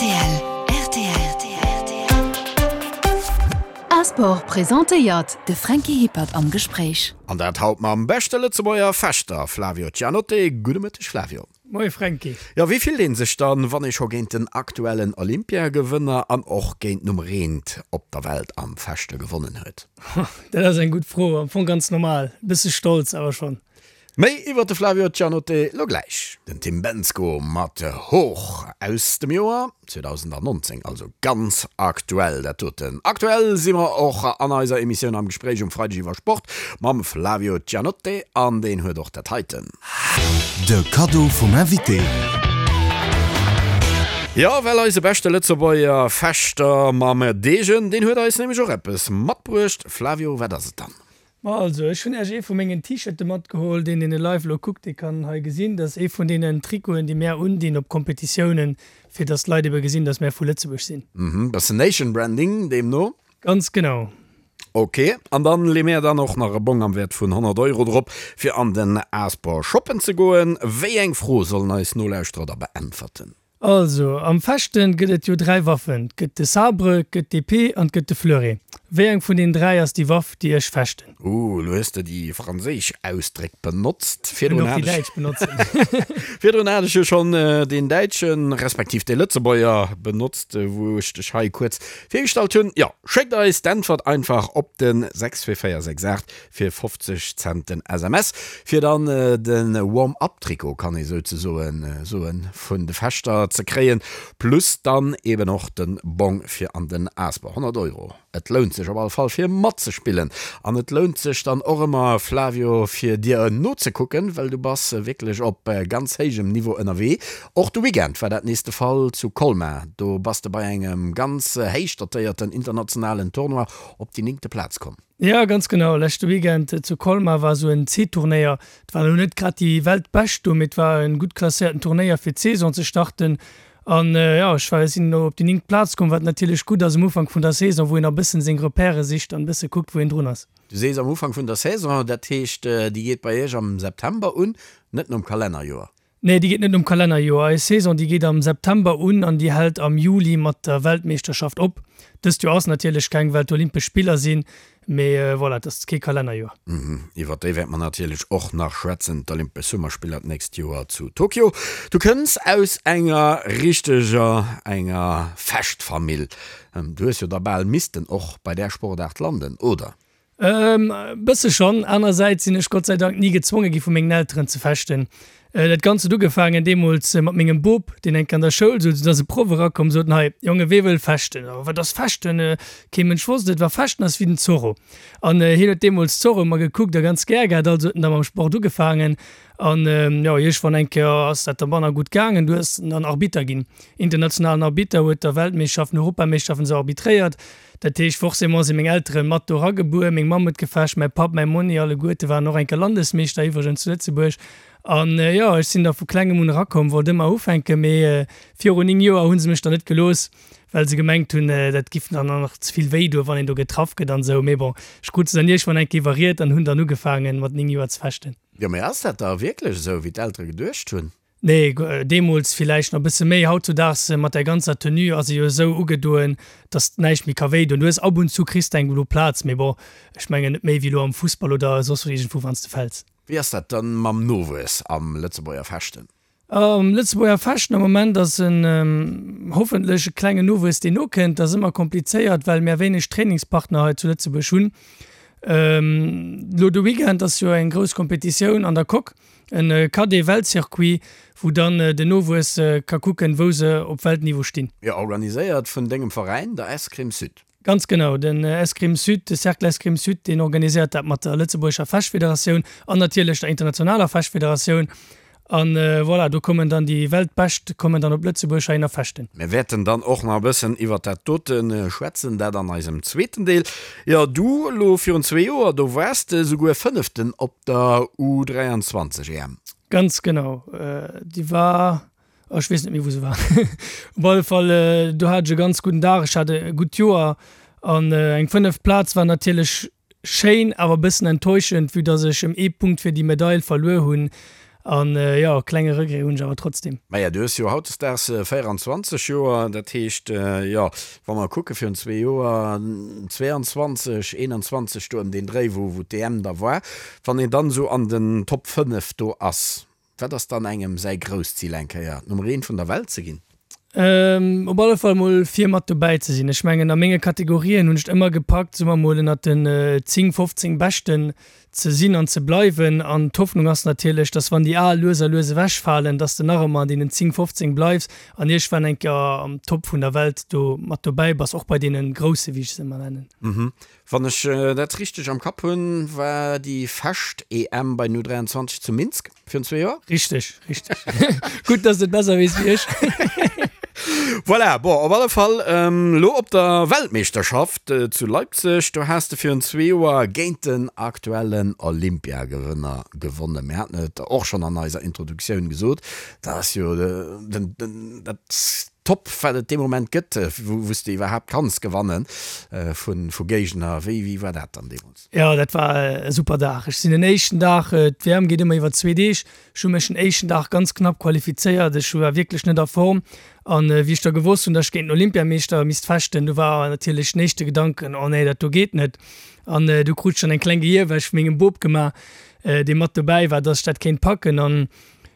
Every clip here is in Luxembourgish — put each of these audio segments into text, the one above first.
Rtl, rtl. Asport presentéiert de Franky Hippert am Gespréich. An dat haut mam beschte Lëtzebuerger Fechter Flavio Cianotte. Gudde Mëtteg Flavio. Moie Franky. Jo, wéi fillt een sech dann, wann ee scho géint den aktuellen Olympiagewënner an och géint Nummer eent op der Welt am Fechte gewonnen huet? Dat ass eng gutt Fro. Am Fong ganz normal. E bësse stolz awer schonn. Méi iwwer de Flavio Cianotte lo gläich. Den Tim Bendzko mat Hoch aus dem Joer 2019, also ganz aktuell dat doten. Aktuell si mer och an eiser Emissioun am Gespréich um Freideg iwwer Sport mam Flavio Cianotte an deen huet och dat heiten. De Kaddo vum Invité. Jo, well eise beschte Lëtzebuerger Fechter mam Degen, deen huet eis nämlech och eppes matbruecht. Flavio, wat ass et dann? Ma also, ech hunn Äech ee vu mengen T-Shirte matgeholl. Deen, deen e live elo kuckt, dee kann hei gesinn, dat ass ee vun deenen Trikoten, déi mär undinn op Kompetitiounen, fir dass d'Leit ebe gesinn, dass mär vu Lëtzebuerg sinn. Mhm, bëssen Nation Branding deemno. Ganz genau. Ok, an dann lee mär dann och nach e Bong am Wäert vun 100 Euro drop, fir an den Asport shoppen ze goen. Wéi eng Fro sollen eis Nolauschterer da beäntwerten? Also, am Fechten gëtt et jo 3 Waffen, 't gëtt de Sabre, 't gëtt d'Epée an 't gëtt de Fleuret. Wéi eng vun den 3 ass déi Waff, déi ech fechten? Ooh, elo hues de déi franséisch Ausdréck benotzt. Ech kënnt och déi däitsch benotzen. Virdrun hat ech jo schonn deen däitschen, respektiv dee Lëtzebuerger benotzt, wou ech dech hei kuerz virgestallt hunn. Jo, schéckt eis d'Äntwert einfach op de 62468 Fir 50 Cent den SMS, fir dann de Warm-up-Trikot, kann ee souzesoen soen, vun de Fechter ze kréien, plus dann eben och de Bong fir an den Asper. 100 Euro, et lount sech op alle Fall fir matzespillen. An et lount sech dann och ëmmer, Flavio, fir dir nozekucken, well du bass wierklech op ganz héijem Niveau ënnerwee. Och de Weekend war dat nees de Fall zu Colmar, do bass de bei engem ganz héich dotéierten internationalen Tournoi op déi néngte Plaz komm. Jo, ganz genau. Leschte Weekend zu Colmar war esou en C-Turnéier. Et waren elo net grad déi Weltbescht do, mee et war en gutt klasséierten Turnéier fir d'Saison ze starten. An jo, ech war, sinn elo op déi néngt Plaz komm, wat natierlech gutt ass um Ufank vun der Saison, wou een nach e bëssen seng Repèrë sicht an e bësse kuckt, wou een drun ass. Du sees am Ufank vun der Saison, dat heescht déi geet bei iech am September un, net nom Kalennerjoer? Nee, déi geet net nom Kalennerjoer. Eis Saison, déi geet am September un an déi hält am Juli mat der Weltmeeschterschaft op. Dëst Joer ass natierlech keng, well d'Olympesch Spiller sinn, mee voilà, et ass kee Kalennerjoer. Iwwer déi wäerte mer natierlech och nach schwätzen, d'Olympesch Summerspiller d'nächst Joer zu Tokio. Du kënns aus enger richteger, enger Fechtfamill. Du hues jo da bal missten och bei där Sportaart landen, oder? E bësse schonn. Anerersäits sinn ech Gott sei Dank ni gezwonge gi vu mengen Elteren ze fechten. Dat Ganzt huet ugefaangen deemools mat mengem Bop, deen eng Kéier an der Schoul souz, du ass e Proff erakomm, sot en, Hei Jonge, wee wëll fechten? Oh, wat ass fechten? Kee Mënsch wosst et. Wa fechten ass wéi den Zorro. An hien huet deemools Zorro ëmmer gekuckt a ganz gär gehat, also huet en da mam Sport ugefaangen. An jo, iergendwann eng Kéier ass dat da manner gutt gaangen, du ass en dann Arbitter ginn, internationalen Arbitter, huet da Weltmeeschterschaften, Europameeschterschaften esou arbitréiert. Dat heescht, forcément si meng Eltere mat do eragebuer. Meng Mamm huet gefecht, mäi Papp, mäi Monni, alleguerte waren och eng Kéier Landesmeeschter iwwregens zu Lëtzebuerg. An jo, ech sinn da vu klengem un erakomm, wollt ëmmer ufänken, mee virun 9 Joer hu se mech dann net gelooss, well se gemengt hunn, dat giff dann nach ze vill wéi doen, wann een do getraff gëtt an esou. Mee bon, ech krut se dann iergendwann eng Kéier iwwerriet an hunn dann ugefaangen, mat 9 Joer ze fechten. Jo, mee ass dat da wierklech esou, wéi d'Eltere geduecht hunn? Nee, deemools villäicht nach e bësse méi. Hautzudaags mat där ganzer Tenue ass e jo esou ugedoen, dass näischt méi ka wéi doen. Du hues ab und zu kriss de eng blo Plaz, mee bon, ech mengen net méi wéi elo am Fussball oder soss wou iergendwou wann s de fäls. Wéi ass dat dann mam Nowuess am Lëtzebuerger Fechten? Am Lëtzebuerger Fechten am Moment ass en hoffentlech e klengen Nowuess deen nokënnt. Dat ass ëmmer komplizéiert, well mär wéineg Trainingspartner hei zu Lëtzebuerg hunn. Elo de Weekend ass jo eng grouss Kompetitioun an der Coque. En Cadet-Weltcircuit, wou dann den Nowuess ka kucken, wou se op Weltniveau stinn. Jo, organiséiert vun dengem Veräin, der Escrime Sud. Ganz genau, den Escrime Sud, de Cercle Escrime Sud, deen organiséiert dat mat der Lëtzebuergescher Fechtfederatioun an natierlech der internationaler Fechtfederatioun. An voilà, do kommen dann déi Weltbescht kommen dann op Lëtzebuerg heihinner fechten. Mir wäerten dann och nach e bëssen iwwert dat dote schwätzen, dat an eisem zweeten Deel. Jo, du elo virun zwee Joer, do waars de souguer Fënneften op der U23 EM. Ganz genau, déi war, oh ech weess net méi wou se war. Op alle Fall do hat ech e ganz gudden Dag, ech hat e gutt Joer an eng fënneft Plaz war natierlech Schéin, awer bëssen enttäuschend, vue dass ech em ee Punkt fir déi Medail verluer hunn. An jo, e klenge Regret hunn ech awer trotzdem. Maja, du hues jo hautdesdaags 24 Joer, dat heescht, jo, wa mer kucke virun zwee Joer, 22, 21, do ëm deen Dréi, wou wou d'EM da war, wann een dann esou an den Top 5 do ass, wat ass dann engem säi grousst Zil eng Kéier Nummer eent vun der Welt ze ginn? Op alle Fall mol vir mat dobäi ze sinn. Ech mengen a menge Kategorien hunn ech et ëmmer gepackt, soe mer mol ënnert den 10, 15 Beschten ze sinn an ze bleiwen. An d'Hoffnung ass natierlech, dass wann déi al lues a lues ewechfalen, dass de nach ëmmer an deenen 10, 15 bleifs an iergendwann eng Kéier am Top vun der Welt do mat dobäi bass, och bei deene Grousse wéi ech se ëmmer nennen. Wann ech dat richteg am Kapp hunn, war déi Fecht EM bei den U23 zu Minsk virun zwee Joer? Richteg, richteg. Gutt, dass de et besser weess wéi ech. Voilà, bon, op alle Fall elo op der Weltmeeschterschaft zu Leipzig, do has de virun zwee Joer géint den aktuellen Olympiagewënner gewonnen. Mir haten et och schonn an eiser Introduktioun gesot, dat ass jo den, dat Top wat et dee Moment gëtt, wou s de iwwerhaapt kanns gewanne vu Géigner. Wéi wéi war dat dann deemools? Jo, dat war e super Dag. Ech sinn den éischten Dag, d'WM geet ëmmer iwwer zwee Deeg, ech hu mech den éischten Dag ganz knapp qualifizéiert. Ech war wierklech net a Form an wéi ech da gewosst hunn, datt ech géint den Olympiameeschter misst fechten, du war natierlech den éischte Gedanken, oh nee, dat do geet net. An du krut ech dann eng kleng Gehierwäsch vu mengem Bop gemaach, dee mat dobäi war, datt ech dat kéint packen. An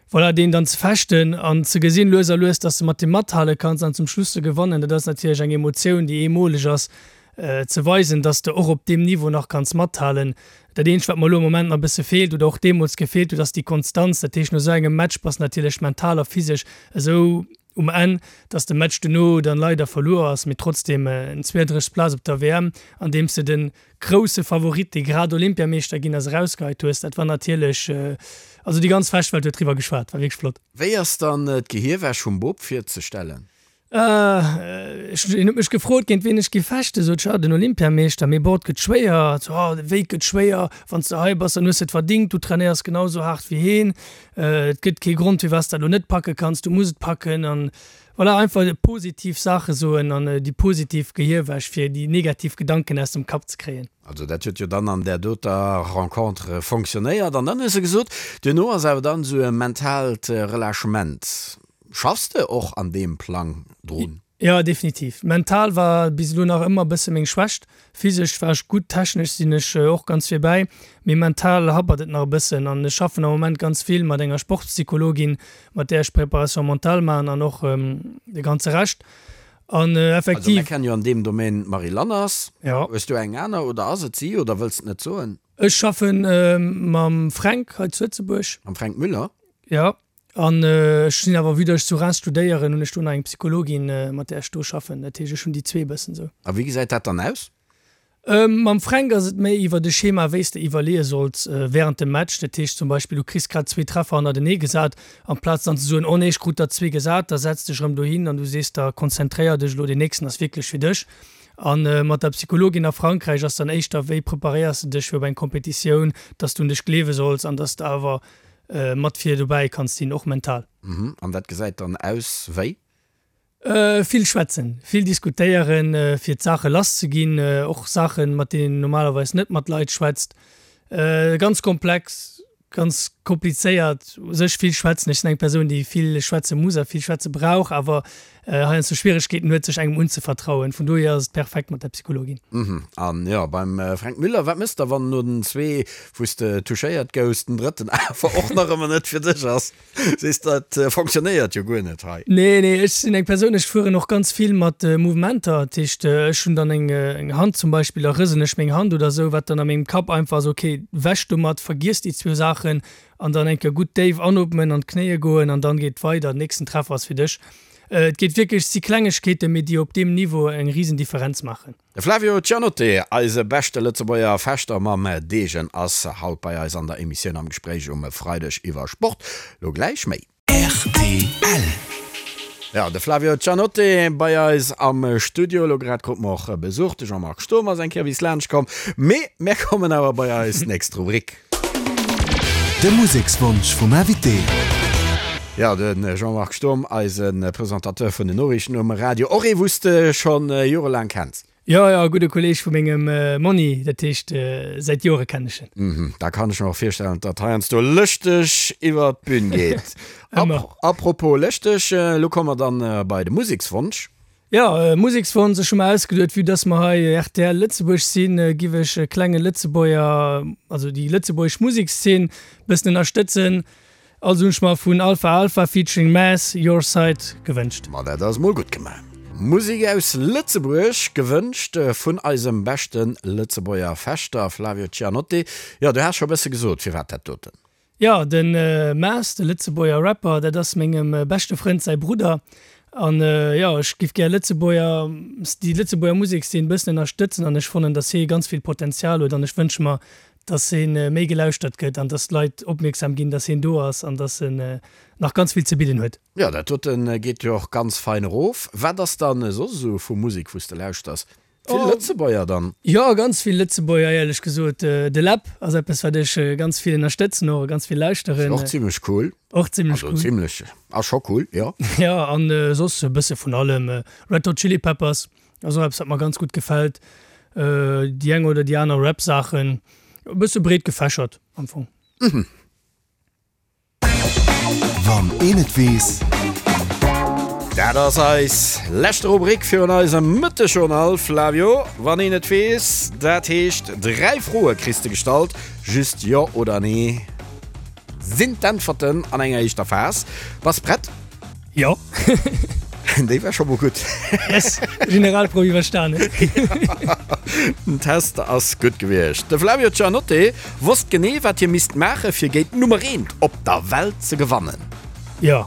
Voilà, deen dann ze fechten an ze gesinn lues a lues, dass de mat deem mathale kanns an zum Schluss ze gewannen, dat ass natierlech eng Emotioun, déi eemoleg ass, ze weisen, dass de och op deem Niveau nach kanns mathalen. Dat eenzegt, wat mer elo am Moment nach e bësse feelt oder och deemools gefeelt huet, ass déi Konstanz. Dat heescht, no esou engem Match bass de natierlech mental a physesch esou um Enn, dass de Match dono dann leider verluer ass, mee trotzdem en 32. Plaz op der WM, andeems de den grousse Favorit, dee grad Olympiameeschter ginn ass, erausgeheit hues, dat war natierlech, also déi ganz Fechtwelt huet driwwer geschwat, war wierklech flott. Wéi ass dann d'Gehierwäsch vum Bop virzestellen? Ech, hien huet mech gefrot, géint wien ech géif fechten, sot ech, ah, den Olympiameeschter, mee bon, et gëtt schwéier, so, ah, wéi et gëtt schwéier, wann s de hei bass, dann hues de et verdingt, du trainéiers genau esou haart wéi heen. Et gëtt kee Grond firwat s dat elo net packe kanns, du muss et packen an voilà, einfach positiv Saache soen an déi positiv Gehierwäsch fir déi negativ Gedanken aus dem Kapp ze kréien. Also dat huet jo dann an där doter Rencontre fonctionnéiert an dann hues de gesot, duerno ass awer dann esou e mentaalt Relâchement. Schaffs de och an deem Plang drun? Jo, definitiv. Mental war bis elo nach ëmmer e bësse meng Schwächt. Physesch war ech gutt, technesch sinn ech och ganz virbäi, mee mental happert et nach e bëssen. An ech schaffen am Moment ganz vill mat enger Sportspsychologin, mat där ech Préparation mentale maachen an och de ganze Rescht. An Also effektiv. mir kennen jo an deem Domaine d'Marie Lanners. Jo. Hues du eng aner oder ass et si oder wëlls et net soen? Ech schaffe mam Fränk hei zu Lëtzebuerg. Mam Fränk Müller? Jo. An ech sinn awer, vue datt ech zu Reims studéieren, hunn ech do nach eng Psychologin, mat där ech do schaffen. Dat heescht, ech hunn déi zwee e bëssen esou. A wéi gesäit dat dann aus? Mam Fränk ass et méi iwwert e Schema, wéi s de iwwerleeë solls wärend dem Match. Dat heescht zum Beispill, du kriss grad zwee Treffer hannertenee gesat, amplaz dann ze soen, oh nee, ech krut der zwee gesat, da setz dech erëm dohin an du sees der, konzentréier dech elo, deen nächsten ass wierklech fir dech. A mat der Psychologin a Frankräich ass dann éischter, wéi preparéiers de dech fir op eng Competitioun, datt s du un dech gleewe solls an datt s de awer mat vir dobäi kanns sinn, och mental. Mhm, an dat gesäit dann aus wéi? Vill schwätzen, vill diskutéieren, fir d'Saache lass ze ginn, och Saachen, mat deenen een normalerweis net mat Leit schwätzt. Ganz komplex, ganz komplizéiert, u sech vill schwätzen. Ech sinn eng Persoun, déi vill schwätze muss a vill schwätze brauch, awer heiansdo Schwieregkeeten huet, sech engem unzevertrauen. Vun dohier ass et perfekt mat der Psychologin. Mhm, an jo, beim Fränk Müller, wat mëss de, wann no den zwee, wou s de touchéiert gouss, den drëtten awer och nach ëmmer net fir dech ass? Sees, dat fonctionnéiert jo guer net hei. Nee, nee, ech sinn eng Persoun, ech fueren och ganz vill mat Mouvementer. Dat heescht, ech hunn dann eng Hand zum Beispill, da rëselen ech meng Hand oder esou, wat dann a mengem Kapp einfach ass, okay, wäsch domat, vergiess déi zwou Saachen an dann eng Kéier gutt déif anootmen, an d'Knéie goen an dann geet et weider, den nächsten Treffer ass fir dech. Et geet wierklech, et si Klengegkeeten, mee déi op deem Niveau eng risen Differenz maachen. De Flavio Cianotte, eise beschte Lëtzebuerger Fechter mam Degen, ass haut bei eis an der Emissioun am Gespréich um Freideg iwwer Sport. Lo gläich méi. Rtl. Jo, de Flavio Cianotte bei eis am Studio. Lo grad krute mer och Besuch. De Jean-Marc Sturm ass eng Kéier bis laanscht komm. Mee mär kommen awer bei eis nächst Rubrik. De Musekswonsch vum Invité. Jo, de Jean-Marc Sturm, eise Presentateur vun den Noriichten um Radio, och ee wou s de scho jorelaang kenns. Jo, jo, e gudde Kolleeg vu mengem Monni, dat heescht, säit Jore kennen ech en. Mhm, da kann ech mer och virstellen, datt heiansdo lëschteg iwwer d'Bün geet. Ëmmer. Apropos lëschteg, elo komme mer dann bei de Musekswonsch. Jo, Musekswonsch, ech hu mer ausgeduet, vue dass mer hei rtl Lëtzebuerg sinn, giff ech e klenge Lëtzebuerger, also déi lëtzebuergesch Musekszeen bëssen ënnerstëtzen. Also hunn ech mer vun Alpha Alpha featuring Mass, Your Side gewënscht. Ma dat ass mol gutt gemaach. Musek aus Lëtzebuerg, gewënscht vun eisem beschte Lëtzebuerger Fechter Flavio Cianotti. Jo, du has scho bësse gesot, firwat dat doten? Jo, de Mass, de Lëtzebuerger Rapper, dat ass mengem beschte Frënd säi Brudder. An jo, ech giff gär Lëtzebuerger, déi Lëtzebuerger Musekszeen bëssen ënnerstëtzen an ech fannen, dass hie ganz vill Potenzial huet an ech wënsche mer, dass hien méi gelauschtert gëtt an dass d'Leit opmierksam ginn, dass hien do ass an dass en nach ganz vill ze bidden huet. Jo, dat doten geet jo och ganz fein erof. Wat ass dann soss esou vu Musek wous de lauschters? Vill Lëtzebuerger dann? Jo, ganz vill Lëtzebuerger éierlech gesot. De Läb ass eppes wat ech ganz vill ënnerstëtzen och a ganz vill lauschteren. Ass och zimlech cool. Och zimlech cool. Also zimlech, ass scho cool, jo. Jo, an soss e bësse vun allem. Red Hot Chili Peppers Ass och eppes wat mer ganz gutt gefält. Déi eng oder déi aner Rap Saachen, e bësse breet gefächert am Fong. Wann een et weess. Dat ass eis leschte Rubrik virun eisem Mëttegjournal, Flavio. Wann een et weess, dat heescht 3 Froe kriss de gestallt, just Jo oder Nee sinn d'Äntwerten an enger éischter Phas. Bass prett? Jo. Déi war scho mol gutt. Yes, Generalprouf iwwerstanen. Den Test ass gutt gewiescht. De Flavio Giannotte wosst genee, wat hie misst maache fir géint d'Nummer eent op der Welt ze gewannen. Jo.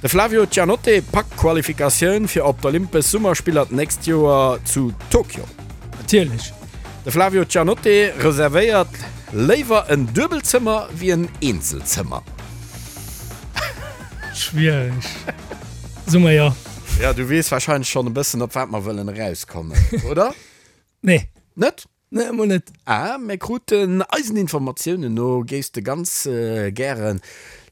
De Flavio Giannotte packt d'Qualifikatioun fir op d'Olympesch Summerspiller d'nächst Joer zu Tokio. Natierlech. De Flavio Giannotte reservéiert léiwer en Duebelzëmmer wéi en Eenzelzëmmer. Schwiereg. Soe mer jo. Ja, du weess wahrscheinlech schonn e bëssen, op wat mer wëllen erauskommen, oder? Nee. Net? Nee, emol net. Ah, mir kruten, eisen Informatiounen no, géifs de ganz gäre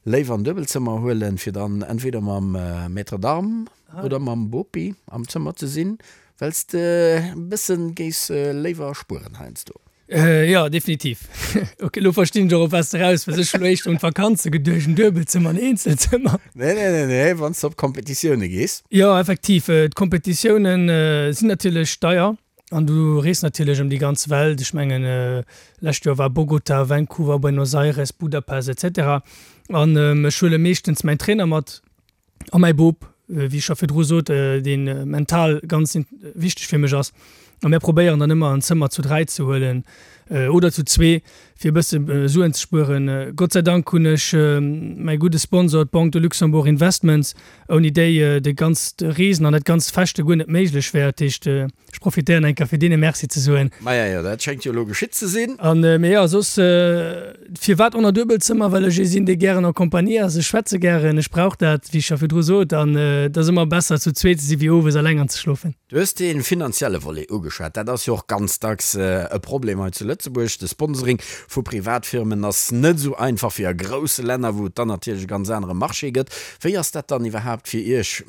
léiwer en Duebelzëmmer huelen, fir dann entweder mam Maître d'armes oder mam Bopi am Zëmmer ze sinn, well s de e bëssen géifs léiwer spueren heiansdo. Jo, definitiv. Ok, elo verstinn ech och, op wat s de eraus wëlls. Ech hunn elo éischter un d'Vakanze geduecht, en Duebelzëmmer, en Eenzelzëmmer. Nee, nee, nee, nee, wann s de op Kompetitioune gees. Jo, effektiv. D'Kompetitioune sinn natierlech deier an du rees natierlech ëm déi ganz Welt. Ech mengen, lescht Joer war Bogota, Vancouver, Buenos Aires, Budapest, etc. An ech huele meeschtens mäin Trainer mat. A mäi Bop, wéi ech scho virdru sot, dee mental ganz wichteg fir mech ass. A mär probéieren dann ëmmer en Zëmmer zu 3 ze huelen oder zu zwee, fir e bësse Suen ze spueren. Gott sei Dank hunn ech mäi gudde Sponsor, d'Banque de Luxembourg Investments, ouni déi de ganzt Reesen an dat ganzt Fechte guer net méiglech wär. Dat heescht, Ech profitéieren eng Kéier fir deene Merci ze soen. Maja jo, dat schéngt jo elo geschitt ze sinn. An, mee jo, soss, firwat on a Duebelzëmmer? Well ech ee sinn, dee gären en Compagnie ass. Ech schwätze gären, ech brauch dat, wéi ech scho virdru sot. An et ass ëmmer besser zu zweet ze si wéi owes eleng anzeschlofen. Du hues dee finanzielle Volet ugeschwat. Dat ass jo och ganz dacks e Problem hei zu Lëtzebuerg. De Sponsoring vu Privatfirmen ass net esou einfach wéi a grousse Länner, wou et dann natierlech e ganz anere Marché gëtt. Wéi ass dat dann iwwerhaapt fir Iech?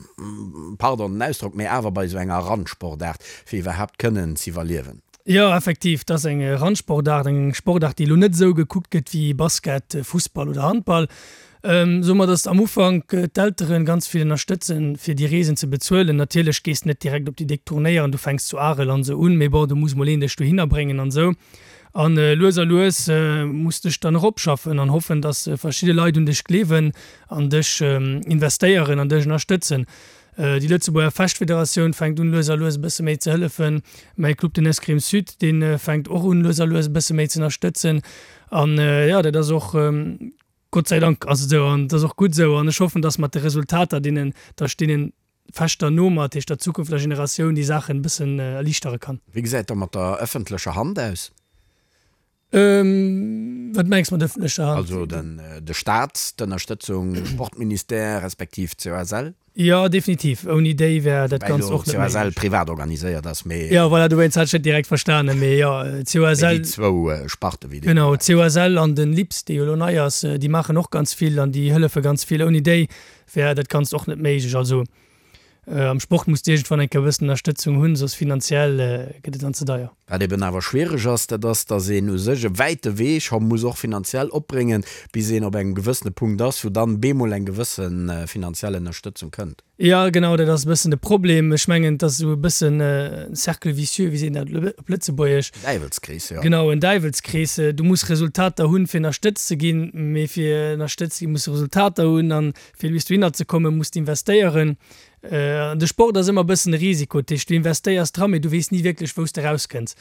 pardon den Ausdrock, mee awer bei esou enger Randsportaart, fir iwwerhaapt kënnen z'iwwerliewen. Jo, effektiv, et ass eng Randsportaart, eng Sportaart, déi elo net esou gekuckt gëtt wéi Basket, Fussball oder Handball. Soe mer, datt am Ufank d'Eltere ganz vill ënnerstëtzen, fir déi Reesen ze bezuelen. Natierlech gees de net direkt op déi déck Turnéieren, du fänks zu Arel an esou un, mee bon, do muss mol een dech dohinner bréngen an esou. An lues a lues muss dech dann eropschaffen an hoffen, dass verschidde Leit un dech gleewen an dech investéieren an dech ënnerstëtzen. Déi Lëtzebuerger Fechtfederatioun fänkt un lues a lues e bësse méi ze hëllefen. Mäi Club, den Escrime Sud, dee fänkt och un lues a lues e bësse méi ze ënnerstëtzen. An jo, dat ass och, Gott sei Dank ass et esou an et ass och gutt esou. An ech hoffen, dass mat de Resultater, deenen, dass ech deenen Fechter no mat, heescht der zukünfteger Generatioun déi Saachen e bëssen erliichtere kann. Wéi gesäit da mat der ëffentlecher Hand aus? Wat mengs mat ëffentlecher Hand? Also den de Staat, d'Ënnerstëtzung, Sportministère respektiv COSL? Jo, definitiv. Ouni déi wär dat Ganzt och net méiglech. COSL privat organiséiert ass, mee. Jo, voilà, dowéinst hat ech net direkt verstanen, mee jo, COSL. Mee déi zwou Sparte wéi déi. Genau, COSL an den LIPS, dee jo elo nei ass, déi maachen och ganz vill an déi hëllefe ganz vill. Ouni déi wär dat Ganzt och net méiglech. Also. Am Sport muss de iergendwann eng Kéier e bëssen Ënnerstëtzung hunn, soss finanziell gëtt et dann ze deier. Wat eben awer schwiereg ass, dat ass, datt een u sech e wäite Wee scho muss och finanziell opbréngen, bis een op engem gewëssene Punkt ass, wou dann bemol eng gewësse finanziell Ënnerstëtzung kënnt. Jo, genau, dat ass e bëssen de Problem. Ech mengen, et ass esou e bëssen e Cercle vicieux, wéi seet een dat op Lëtzebuergesch? Däiwelskrees, jo. Genau, en Däiwelskrees. Du muss Resultater hunn, fir ënnerstëtzt ze ginn, mee fir ënnerstëtzt ze ginn, muss de Resultater hunn an Fir bis dohinner ze kommen, muss de investéieren. An de Sport ass ëmmer e bëssen e Risiko. Dat heescht, du investéiers dran, mee du weess ni wierklech, wou s de erauskënns.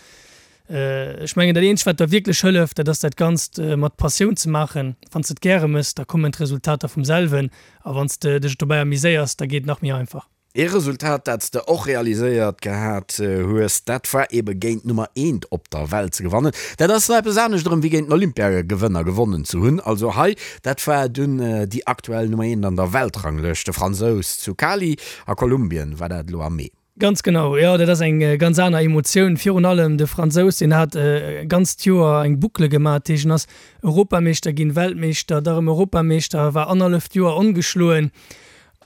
Ech mengen, dat eenzegt, wat der wierklech hëlleft, dat ass dat Ganzt mat Passioun ze maachen. Wann s de et gäre méchs, da kommen d'Resultater vum selwen. A wann s de dech dobäi amuséiers, da geet et nach méi einfach. Ee Resultat, dat s de och realiséiert gehat hues, dat war ebe géint d'Nummer eent op der Welt ze gewannen. Dat ass nach eppes anescht erëm wéi géint den Olympiagewënner gewonnen ze hunn. Also hei, dat war dunn déi aktuell Nummer eent an der Weltranglëscht, de Fransous zu Cali a Kolumbien war dat elo am Mee. Ganz genau, jo, dat ass eng ganz aner Emotioun. Virun allem de Fransous, deen hat e ganzt Joer eng Boucle gemaach, dat heescht en ass Europameeschter ginn, Weltmeeschter, da rëm Europameeschter, war annerhalleft Joer ongeschloen.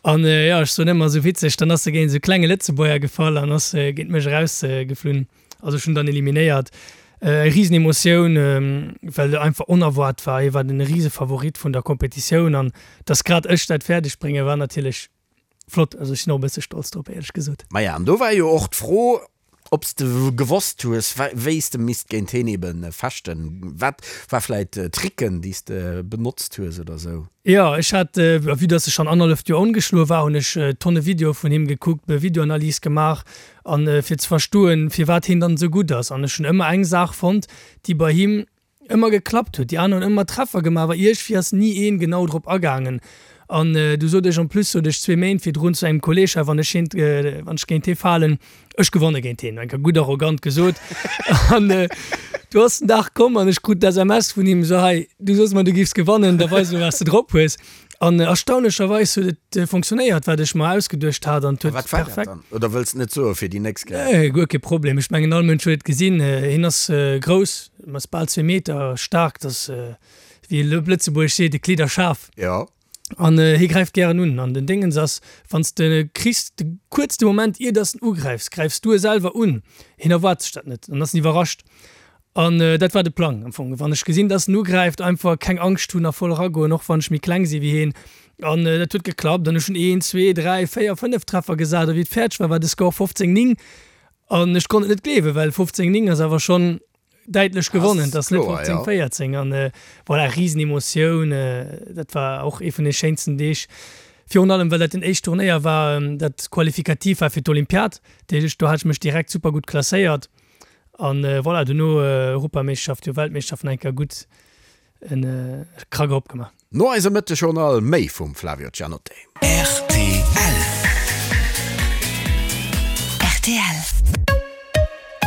An jo, ech soen ëmmer esou witzeg, dann ass se géint esou klenge Lëtzebuerger gefall an ass géint mech erausgeflunn. Also ech hunn dann eliminéiert. Eng risen Emotioun, well et einfach onerwaart war. Hie war den rise Favorit vun der Competitioun an dass grad ech dat fäerdeg bréngen, war natierlech flott. Also ech sinn och e bësse stolz drop, éierlech gesot. Maja, an do war jo och d'Fro, Ob s de gewosst hues, wéi s de misst géint heen ebe fechten? Wat war vläit Tricken, déi s de benotzt hues oder sou? Jo, ech hat, vue dass ech schonn annerhalleft Joer ongeschloe war, hunn ech Tonne Videoe vun him gekuckt, Videoanalyse gemaach an fir ze verstoen, firwat heen dann esou gutt ass. An ech hunn ëmmer eng Saach fonnt, déi bei him ëmmer geklappt huet. Déi aner hunn ëmmer Treffer gemaach, awer iergwéi ass ni een genau drop agaangen. An du sot ech en plus, sot ech zwee Méint virdrun zu engem Kolleg, hei wann ech hien, wann ech géint hie falen, ech gewanne géint hien. Eng Kéier gutt arrogant gesot. An du ass den Dag komm an ech krut d'SMS vun him, sou, hei, du soss mer, du giffs gewannen, da weis elo wat s de drop hues. An erstaunlecherweis huet et fonctionnéiert, wat ech mer ausgeduecht hat an et huet perfekt. Wat war dat dann? Oder wëlls de net soe fir déi nächst Kéier? Nee, guer kee Problem. Ech mengen all Mënsch huet et gesinn. Hien ass grouss, ass bal zwee Meter staark, dat ass, wéi een op Lëtzebuergesch seet, e Kleederschaf. Jo. An hie gräift gären un. An den Déngens ass, wann s de kriss, de kuerz de Moment ier dass en ugräifs, gräifs du e selwer un. Hien erwaart sech dat net an ass iwwerrascht. An dat war de Plang am Fong. Wann ech gesinn, dass en ugräift, einfach keng Angscht hunn a voll eragoen, och wann ech méi kleng si wéi heen. An dat huet geklappt an ech hunn een, zwee, dräi, véier, fënnef Treffer gesat a wéi et fäerdeg war, war de Score 15, 9. An ech konnt et net gleewen, well 15, 9 ass awer schonn däitlech gewonnen, et ass net 15, 14. An voilà, Risenemotioun, dat war och ee vun de schéinsten Deeg. Virun allem, well dat den éischt Turnéier war, dat qualifikativ war fir d'Olympiad. Dat heescht, do hat ech mech direkt super gutt klasséiert. An voilà, dono Europameeschterschaft, jo Weltmeeschterschaft nach eng Kéier gutt en Krack erop gemaach. No eisem Mëttegjournal méi vum Flavio Cianotte. Rtl. Rtl.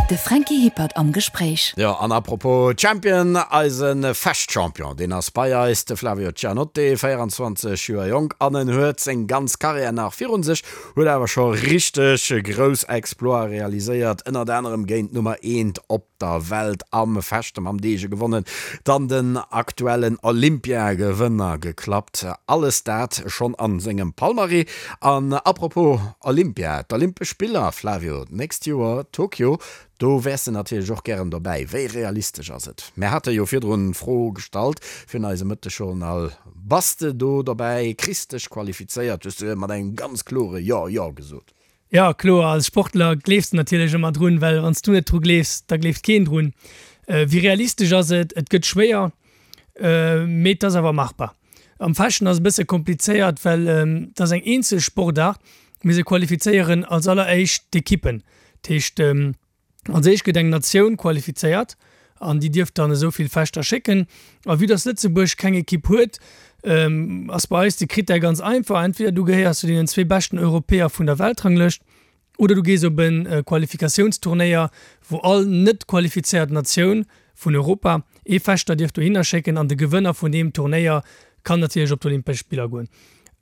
De Franky Hippert am Gespréich. Jo, an apropos Champion, eise Fechtchampion, deen ass bei eis, de Flavio Cianotte, 24 Joer jonk an en huet seng ganz Karriär nach virun sech. Huet awer scho richteg grouss Exploite realiséiert, ënnert anerem géint d'Nummer eent op der Welt am Fechte mam Dege gewonnen, dann den aktuellen Olympiagewënner geklappt. Alles dat schonn a sengem Palmarès. An apropos Olympia, d'Olympesch Spiller, Flavio, d'nächst Joer Tokio, do wäers de natierlech och gären dobäi. Wéi realistesch ass et? Mär hate jo virdrun d'Fro gestallt virun eisem Mëttegjournal. Bass de do dobäi? Kriss dech qualifizéiert? Hues du mat engem ganz klore Jo, jo gesot. Jo, kloer. Als Sportler gleefs de natierlech ëmmer drun, well wann s du net dru gleefs, da gleeft keen drun. Wéi realistesch ass et? Et gëtt schwéier, mee et ass awer machbar. Am Fechten ass et e bësse komplizéiert, well et ass eng eenzel Sportaart, mee se qualifizéieren als alleréischt d'Ekippen. Dat heescht, Als éischt gëtt eng Natioun qualifizéiert an déi dierf dann esou vill Fechter schécken. A vue dass Lëtzebuerg keng Ekipp huet, ass bei eis de Critère ganz einfach, entweder du gehéiers zu deenen zwee beschten Europäer vun der Weltranglëscht oder du gees op e Qualifikatiounsturnéier, wou all net qualifizéiert Natioun vun Europa ee Fechter dierf dohinner schécken an de Gewënner vun deem Turnéier kann natierlech op d'Olympesch Spiller goen.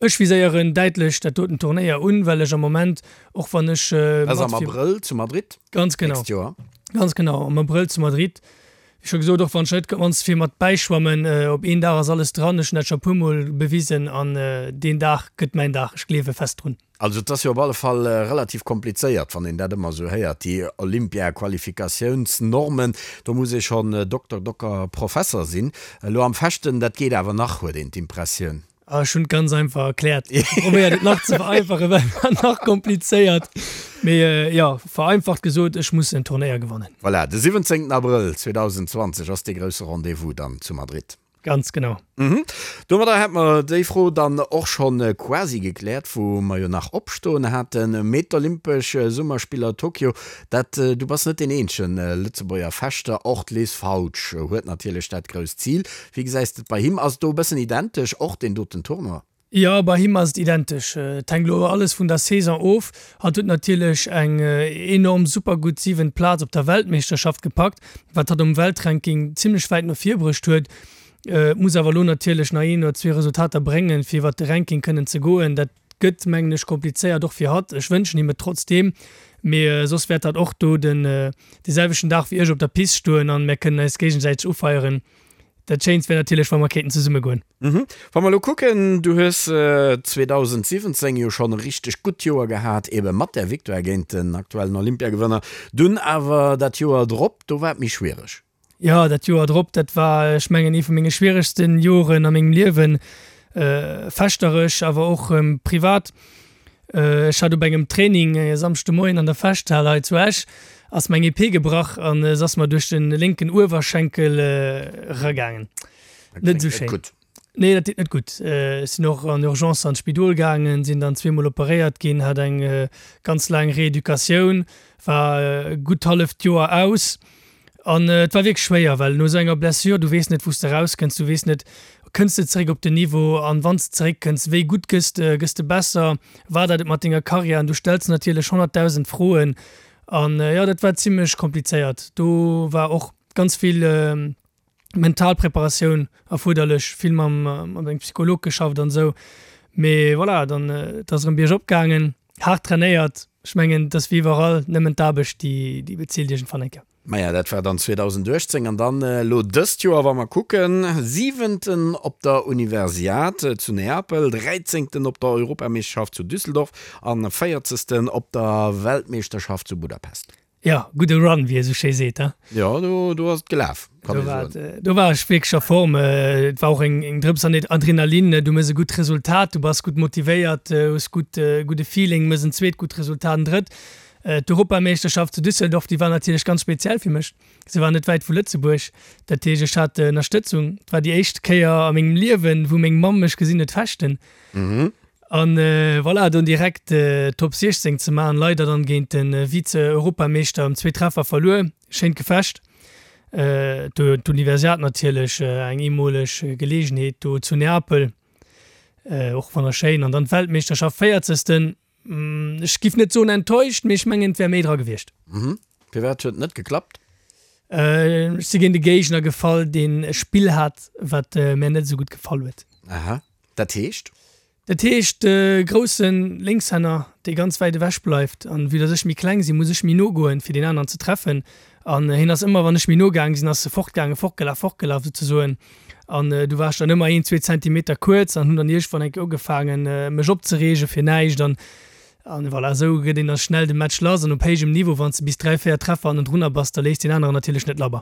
Ech viséieren däitlech dat doten Turnéier un, well ech am Moment, och wann ech Dat ass am Abrëll zu Madrid Ganz genau. d'nächst Joer. Ganz genau, am Abrëll zu Madrid. Wéi scho gesot, och wann ech net ganz vill mat bäischwammen, op een Dag ass alles dran. Ech hunn dat scho e puer Mol bewisen an deen Dag gëtt mäin Dag. Ech gleewe fest drun. Also et ass jo op alle Fall relativ komplizéiert, wann een dat ëmmer esou héiert, déi Olympia-Qualifikatiounsnormen. Do muss ee schonn Dokter, Docker, Professer sinn. Elo am Fechten, dat geet awer nach, huet een d'Impressioun. Ah, ech hunn et ganz einfach erkläert. Probéiert et nach ze vereinfachen, well et war nach komplizéiert. Mee jo, vereinfacht gesot, ech muss en Turnéier gewannen. Voilà, de 17 Abrëll 2020 ass dee grousse Rendez-vous dann zu Madrid. Ganz genau. Domadder hätt mer déi Fro dann och schonn quasi gekläert, wou mer jo nach opstoen haten. Mee d'Olympesch Summerspiller Tokio, dat, du bass net deen eenzegen Lëtzebuerger Fechter, och d'Liz Fautsch huet natierlech dat grousst Zil. Wéi gesäis de et bei him? Ass et do e bëssen identesch, och deen doten Tournoi? Jo, bei him ass et identesch. Et hänkt elo alles vun der Saison of. Hatt huet natierlech eng enorm super gutt siwent Plaz op der Weltmeeschterschaft gepackt, wat hatt um Weltranking zimmlech wäit no vir bruecht huet. Muss awer elo natierlech nach een oder zwee Resultater bréngen, fir iwwert de Ranking kënnen ze goen. Dat gëtt, mengen ech, komplizéiert och fir hatt. Ech wënschen him et trotzdeem, mee soss wäert hatt och do den dee selwechten Dag wéi ech op der Pist stoen an mär kënnen eis géigesäiteg ufeieren. Dat Schéinst wär natierlech, wa mer kéinten zesumme goen. Wa mer elo kucken, du hues 2017 jo schonn e richteg gutt Joer gehat, ebe mat där Victoire géint den aktuellen Olympiagewënner. Dunn awer dat Joer drop, do war et méi schwiereg. Jo, dat Joer drop, dat war, ech mengen, ee vu menge schwieregsten Joren a mengem Liewen, fechterech, awer och privat. Ech hat op engem Training e Samschde Moien an der Fechthal hei zu Esch, ass meng Epée gebrach an se ass mer duerch de lénken Uewerschenkel eragaangen. Net esou schéin. Nee, dat deet net gutt. Ech sinn och an Urgence an d'Spidol gaangen, sinn dann zweemol operéiert ginn, hat eng ganz laang Reeducatioun, war gutt halleft Joer aus. An et war wierklech schwéier, well no esou enger Blessure, du weess net, wou s de erauskënns, du weess net, kënns de zeréck op den Niveau an wann s de zeréckkënns, wéi gutt gëss de, gëss de besser, war dat et mat denger Karriär? An du stells natierlech 100.000 Froen an jo, dat war zimmlech komplizéiert. Do war och ganz vill mental Preparatioun erfuerderlech, vill mam mat engem Psycholog geschafft an esou. Mee voilà, dann et ass erëm biergop gaangen, haart trainéiert. Ech mengen, et ass wéi iwwerall, nëmmen d'Aarbecht, déi déi bezilt iergendwann eng Kéier. Maja, dat war dann 2018 an dann elo dëst Joer, wa mer kucken, Siwenten op der Universiad zu Neapel, Dräizéngten op der Europameeschterschaft zu Düsseldorf an Véierzegsten op der Weltmeeschterschaft zu Budapest. Jo, gudde Run, wéi ee sou schéi seet, he? Jo, do, do ass et gelaf, kann ee soen. Do war ech wierklech a Form. Et war och eng, eng Drëps an Adrenalin. Du méchs e gutt Resultat, du bass gutt motivéiert, hues gutt, gudde Feeling, méchs en zweet gutt Resultat, en drëtt. D'Europameeschterschaft zu Düsseldorf, déi war natierlech ganz speziell fir mech. Se war net wäit vu Lëtzebuerg, dat heescht, ech hat Ënnerstëtzung. Et war déi éischt Kéier a mengem Liewen, wou meng Mamm mech gesinn huet fechten. An voilà, dunn direkt Top 16 ze maachen, leider dann géint de Vize-Europameeschter ëm zwee Treffer verluer. Schéint Gefecht. D'Universiad natierlech eng eemoleg Geleegenheet do zu Neapel, och wonnerschéin. An dann d'Weltmeeschterschaft, véierzegsten. Ech giff net soen enttäuscht, mee ech mengen et wär méi dra gewiescht. Firwat huet et net geklappt? Ech si géint e Géigner gefall, deen e Spill hat, wat mär net esou gutt gefall huet. Aha. Dat heescht? Dat heescht, de grousse Lénkshänner, dee ganz wäit ewech bleift, an vue dass ech méi kleng sinn, muss ech méi no goen, fir deen aneren ze treffen. An hien ass ëmmer, wann ech méi no gaang sinn, ass e fortgaangen, fortgelaf, fortgelaf souzesoen. An du war ech dann ëmmer een, zwee Zentimeter kuerz an hunn dann iergendwann eng Kéier ugefaangen, mech opzereege fir näischt. An, an voilà, esou gëtt een da schnell de Match lass. An op héijem Niveau, wann s de bis dräi, véier Treffer hannendrunner bass, da léisst deen aneren natierlech net labber.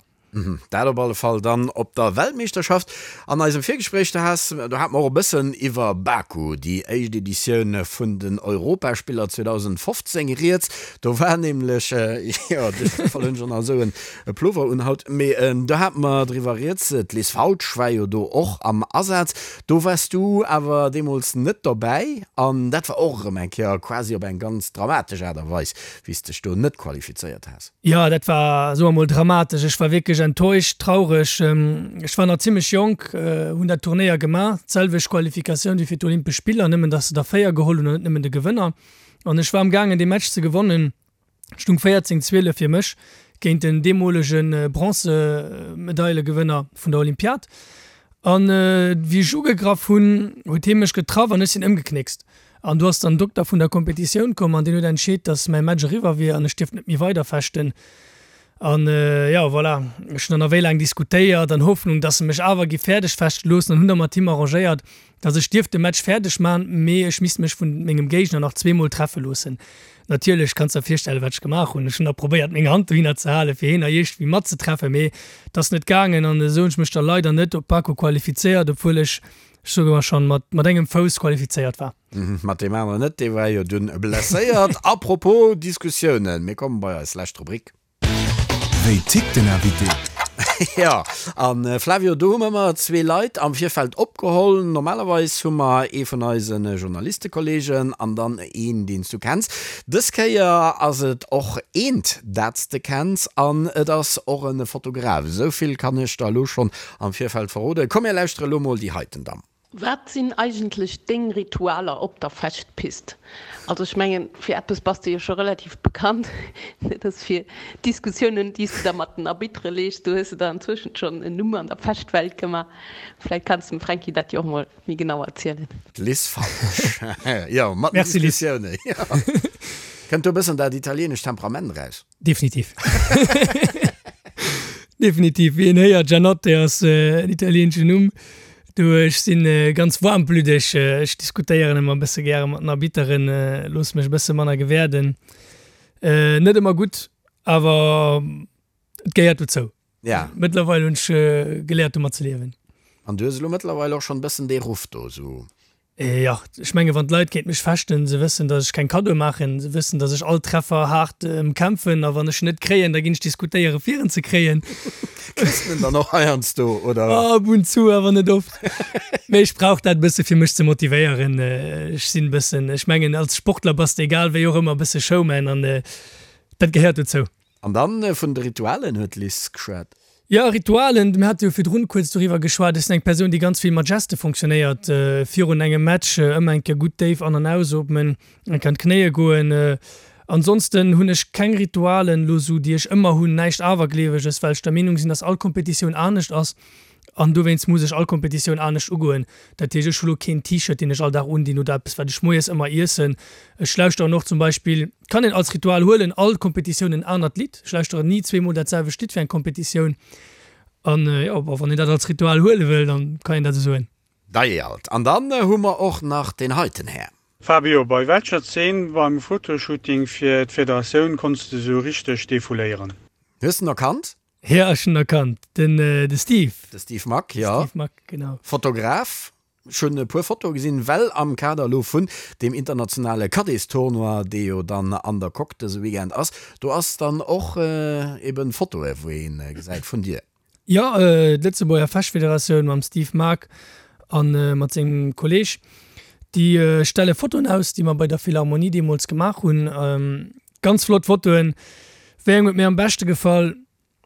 Dat op alle Fall dann op der Weltmeeschterschaft. An eisem Virgespréich, do has, do hate mer och e bëssen iwwer Baku, déi éischt Editioun vun den Europaspiller 2015 rieds. Do war nämlech, jo, duerch Zoufall hunn ech och nach esou en Plover un haut, mee do hate mer driwwer rieds, d'Liz Fautsch war jo do och am Asaz. Do waars du awer deemools net dobäi an dat war och erëm eng Kéier quasi op eng ganz dramatesch Aart a Weis, wéi s dech do net qualifizéiert has. Jo, dat war, soe mer mol, dramatesch. Ech war wierklech enttäuscht, traureg. Ech war nach zimmlech jonk, hunn dat Turnéier gemaach, d'selwecht Qualifikatioun wéi fir d'Olympesch Spiller, nëmmen datt se der 4 geholl hunn an net nëmmen de Gewënner. An ech war am gaangen dee Match ze gewonnen, et stung 14, 12 fir mech géint den deemolege Bronzemedaile-Gewënner vun der Olympiad. An wéi ech ugegraff hunn, huet hie mech getraff an ech sinn ëmgeknéckst. An do ass dann den Dokter vun der Kompetitioun komm an deen huet entscheet, dass mäi Match eriwwer wier an ech dierft net méi weider fechten. An jo, voilà, ech hunn dann nach wéi laang diskutéiert an Hoffnung, dass se mech awer gi fäerdeg fechte loossen an hunn da mat him arrangéiert, dass ech dierft de Match fäerdeg man, mee ech misst mech vun mengem Géigner nach zweemol treffe loossen. Natierlech, kanns der virstellen, wat ech gemaach hunn. Ech hunn da probéiert, meng Hand dohinner ze halen, fir heen nach iergendwéi matzetreffen, mee et ass net gaangen an esou hunn ech mech da leider net op Baku qualifizéiert, obwuel ech, ech soe mar schonn, mat mat engem Fouss qualifizéiert war. Mat deem aneren net, dee war jo dunn blesséiert. Apropos Diskussiounen, mir komme bei eis lescht Rubrik. Wéi tickt den Invité? Jo, a Flavio, do hu mer ëmmer zwee Leit am Virfeld opgeholl. Normalerweis hu mer ee vun eise Journalistekolleegen an dann een, deen s du kenns. Dës Kéier ass et och eent, dat s de kenns an et ass och e Fotograf. Esou vill kann ech der elo schonn am Virfeld verroden. Komm, mir lauschtere elo mol déi heiten Damm. Wat sinn eigentlech deng Ritualer op der Fechtpist? Also ech mengen, fir eppes bass de jo scho relativ bekannt, dat ass fir d'Diskussiounen, déi s de da mat den Arbitere lees. Do hues de der anzwëschent schonn en Numm an der Fechtwelt gemaach. Vläicht kanns de dem Fränki dat jo och mol méi genau erzielen. D'Liz Falsch, jo, mat den Merci Liz. Diskussiounen, jo. Kënnt do e bëssen dat italienescht Temperament eraus? Definitiv. Definitiv. Wéi een héiert, Gianotte ass en italieenschen Numm. Du, ech si ganz waarmblüddeg. Ech diskutéieren ëmmer e bësse gäre mat den Arbitteren, loosse mech e bësse manner gewäerden. Net ëmmer gutt, awer et gehéiert dozou. Ja. Mëttlerweil hunn ech geléiert, domat ze liewen. An du hues elo mëttlerweil och schonn e bëssen dee Ruff do, esou. Jo, ech menge wann d'Leit géint mech fechten, se wëssen, datt ech keng Kaddoe maachen, se wëssen, datt ech all Treffer haart ëmkämpfen a wann ech en net kréien, da ginn ech diskutéiere fir en ze kréien. Kriss de en dann och heiansdo, oder? Ab und zu, awer net oft. Mee ech brauch dat e bësse fir mech ze motivéieren. Ech sinn e bëssen, ech mengen als Sportler bass de egal wéi och ëmmer e bësse Showman an dat gehéiert dozou. An dann vun de Ritualen huet d'Liz geschwat. Jo, Ritualen, mir hate jo virdrun kuerz doriwwer geschwat. Ech sinn eng Persoun, déi ganz vill mat Geste fonctionnéiert. Virun engem Match ëmmer eng Kéier gutt déif an an ausootmen, eng Kéier an d'Knéie goen. Ansonsten hunn ech keng Ritualen elo sou, déi ech ëmmer hunn, näischt Awergleeweges, well ech der Meenung sinn, dass all Kompetitioun anescht ass. An dowéinst muss ech all Kompetitioun anescht ugoen. Dat heescht, ech hu lo keen T-Shirt, deen ech all Dag undinn oder eppes, wat ech moies ëmmer iessen. Ech lauschteren och zum Beispill, kann een als Ritual huelen, all Kompetitioun en anert Lidd. Ech lauschteren ni zweemol dat selwecht Lidd fir eng Kompetitioun. An jo, bon, wann een dat als Ritual huele wëll, dann kann een dat esou soen. Dei alt. An dann hu mer och nach deen heiten Här. Fabio, bei welcher Szene beim Fotoshooting fir d'Federatioun konns de sou richteg defouléieren? Hues de en erkannt? Jo, ech hunn erkannt, den de Steve. De Steve Mack, jo. Steve Mack, genau. Fotograf. Ech hunn e puer Fotoe gesinn, well am Kader elo vun deem internationale Caddiestournoi, dee jo dann an der Coque dëse Weekend ass, do ass dann och eben Fotoe wou ee gesäit vun dir. Jo, d'Lëtzebuerger Fechtfederatioun mam Steve Mack a mat sengem Kolleeg, déi stelle Fotoen aus, déi mer bei der Philharmonie deemools gemaach hunn. Ganz flott Fotoen. Wéi eng huet mir am beschte gefall?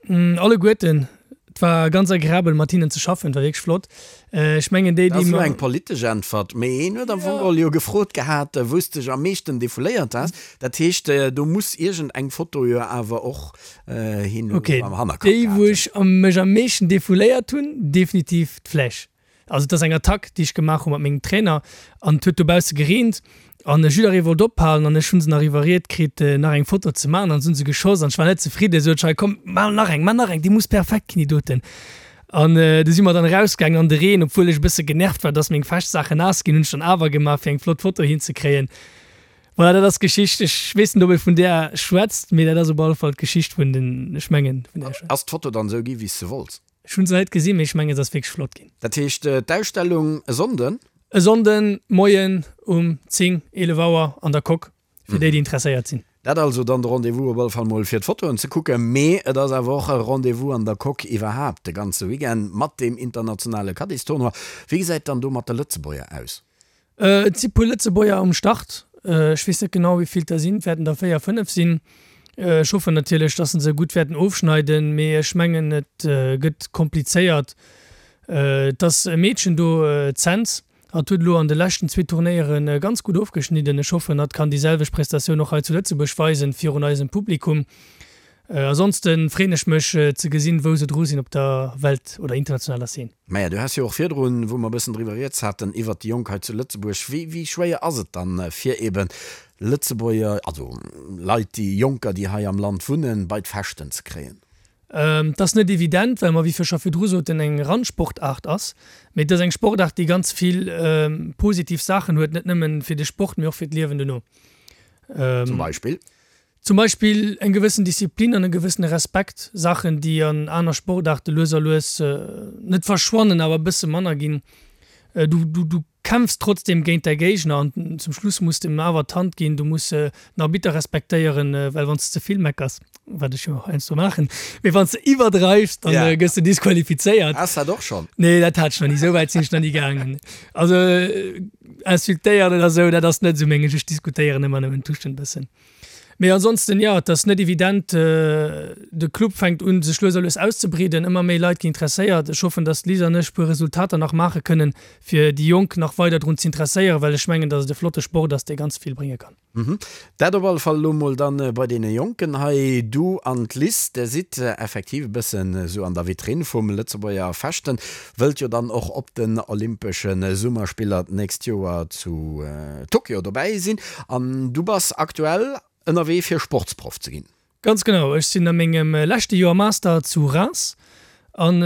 Alleguerten. Et war ganz agreabel mat hinnen ze schaffen, et war wierklech flott. Ech mengen déi, déi. Dat ass elo eng politesch Äntwert, mee een huet am Fong geholl jo gefrot gehat, wou s de dech am meeschten defouléiert has. Dat heescht, do muss iergend eng Foto jo awer och hien am Hannerkapp gehat hunn. Ok, déi wou ech mech am meeschten defouléiert hunn, definitiv d'Fläsch. Also et ass eng Attack, déi ech gemaach hu mat mengem Trainer an et huet dobausse gereent an jidderee wollt ophalen an ech hu se nach iwwerriet kritt, nach eng Foto ze maachen an se hu se geschoss an ech war net zefridden. Sot ech, hei komm, maach nach eng, maach nach eng, déi muss perfekt ginn, déi doten. An du si mer dann erausgaangen an de Reen, obwuel ech e bësse genervt war, dass meng Feschtsaachen naass ginn, hunn ech dann awer gemaach, fir eng flott Foto hinzekréien. Voilà, dat ass d'Geschicht. Ech weess net, ob ee vun där schwätzt, mee dat ass op alle Fall d'Geschicht vun den, ech mengen, vun där ech schwätzen. Ass d'Foto dann esou gi wéi s de wollts? Ech hunn se net gesinn, mee ech mengen se ass wierklech flott ginn. Dat heescht d'Ausstellung e Sonnden? E Sonnden Moien um 10, 11 Auer an der Coque, fir déi déi interesséiert sinn. Dat also dann de Rendez-vous op alle Fall mol fir d'Fotoen ze kucken, mee et ass awer och e Rendez-vous an der Coque iwwerhaapt de ganze Weekend mat deem internationale Caddistournoi. Wéi gesäit dann do mat de Lëtzebuerger aus? Et si puer Lëtzebuerger um Start. Ech weess net genau, wéi vill et der sinn. Et wäerten der 4, 5 sinn. Ech hoffen natierlech, dass se se gutt wäerten ofschneiden, mee ech mengen, et gëtt komplizéiert. Et ass e Meedchen do, d'Senz. Hatt huet elo an de leschten zwee Turnéiere ganz gutt ofgeschnidden. Ech hoffen, hatt kann déi selwecht Prestatioun och hei zu Lëtzebuerg weisen, virun eisem Publikum. Ansonsten freen ech mech ze gesinn wou se dru sinn op der Welt oder internationaler Szene. Maja, du has jo och virdrun, wou mer e bëssen driwwer rieds haten, iwwert déi Jonk hei zu Lëtzebuerg. Wéi, wéi schwéier ass et dann, fir eben Lëtzebuerger, also Leit, déi Jonker, déi hei am Land wunnen, bei d'Fechten ze kréien? Et ass net evident, well mer, wéi vir scho virdru soten, eng Randsportaart ass. Mee et ass eng Sportaart, déi ganz vill positiv Saachen huet, net nëmmen fir de Sport, mee och fir d'Liewen dono. Zum Beispill? Zum Beispill eng gewëssen Disziplin an e gewëssene Respekt, Saachen, déi an aner Sportaarte lues a lues net verschwannen, awer e bësse manner ginn. Du, du, du kämpfs trotzdem géint däi Géigner an zum Schluss muss de em awer d'Hand ginn. Du muss den Arbitter respektéieren, well wann s de ze vill meckers, wat ech jo heiansdo maachen, mee wann s de iwwerdreifs, dann gëss de disqualifizéiert. Has dat och schonn? Nee, dat hat ech nach ni, esou wäit sinn ech nach ni gaangen. Also insultéieren oder esou, dat ass net esou menges, ech diskutéieren ëmmer nëmmen tuschen e bëssen. Mee ansonsten, jo, et ass net evident. De Club fänkt un, sech lues a lues auszebreeden. Ëmmer méi Leit ginn interesséiert. Ech hoffen, datt d'Liz an ech puer Resultater nach maache kënnen, fir déi Jonk nach weider drun z'interesséieren, well ech mengen, datt et e flotte Sport ass, dee ganz vill brénge kann. Dat op alle Fall elo mol dann bei deene Jonken hei. Du an d'Liz, der sidd effektiv e bëssen esou an der Vitrinn vum Lëtzebuerger Fechten. Wëllt jo dann och op den Olympesche Summerspiller d'nächst Joer zu Tokio dobäi sinn. An du bass aktuell ënnerwee fir Sportsproff ze ginn. Ganz genau, ech sinn a mengem leschte Joer Master zu Reims an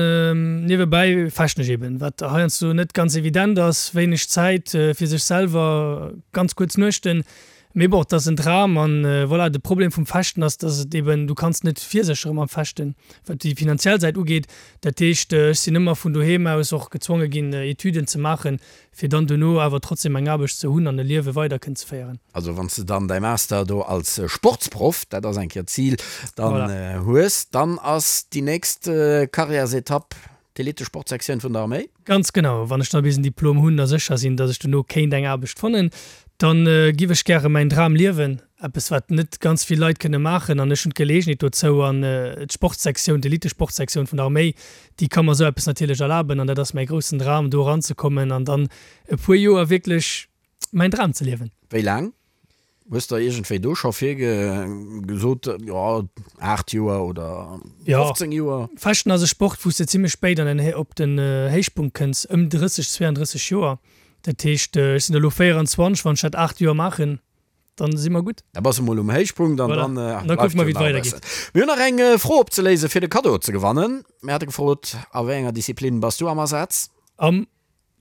niewebäi fechten ech eben, wat heiansdo net ganz evident ass, wéineg Zäit fir sech selwer, ganz kuerz Nuechten. Mee bon, et ass en Dram an voilà. De Problem vum Fechten ass, dass et eben, du kanns net virséchere mam Fechten, wat déi finanziell Säit ugeet. Dat heescht, ech sinn ëmmer vun doheem aus och gezwonge ginn, Etüden ze maachen, fir dann dono awer trotzdem eng Aarbecht ze hunn an e Liewe weider kënnen ze féieren. Also wann s de dann däi Master do als Sportsproff, dat ass eng Kéier d'Zil, dann hues, dann ass déi nächst Karriärsetapp D'Elite-Sportsektioun vun der Arméi? Ganz genau. Wann ech da bis en Diplom hunn a sécher sinn, datt ech dono kéint eng Aarbecht fannen, dann giff ech gäre mäin Dram liewen. Eppes wat net ganz vill Leit kënne maachen an ech hunn d'Geleegenheet dozou an d'Sportsektioun, d'Elite-Sportsektioun vun der Arméi, déi ka mer esou eppes natierlech erlaben an dat ass mäi groussen Dram, do eranzekommen an dann e puer Joer wierklech mäin Dram ze liewen. Wéi laang? Hues der iergendwéi do scho virgesot, jo 8 Joer oder 15 Joer? Fechten ass e Sport, wou s de zimmlech spéit an den op den Héichpunkt kënns, ëm 30, 32 Joer. Dat heescht, ech sinn elo 24, wann ech dat 8 Joer maachen, dann si mer gutt. Da bass de mol um Héichpunkt an dann bleift jo nach e bëssen. Mir hunn nach eng Fro opzeléisen, fir de Kaddo ze gewannen. Mir hate gefrot, A wéi enger Disziplin bass du am Asaz? Am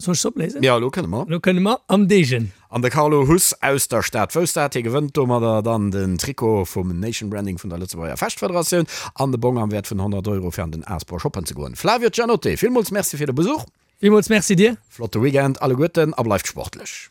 Soll ech se opléisen? Jo, elo kënne mer. Elo kënne mer am Degen. An de Carlo Huss aus der Stad wousst dat. Hie gewënnt domadder dann den Trikot vum Nation Branding vun der Lëtzebuerger Fechtfederatioun an de Bong am Wäert vun 100 Euro fir an den Aspor shoppen ze goen. Flavio Giannotte, villmools Merci fir de Besuch. Villmools Merci dir. Flotte Weekend alleguerten a bleift sportlech.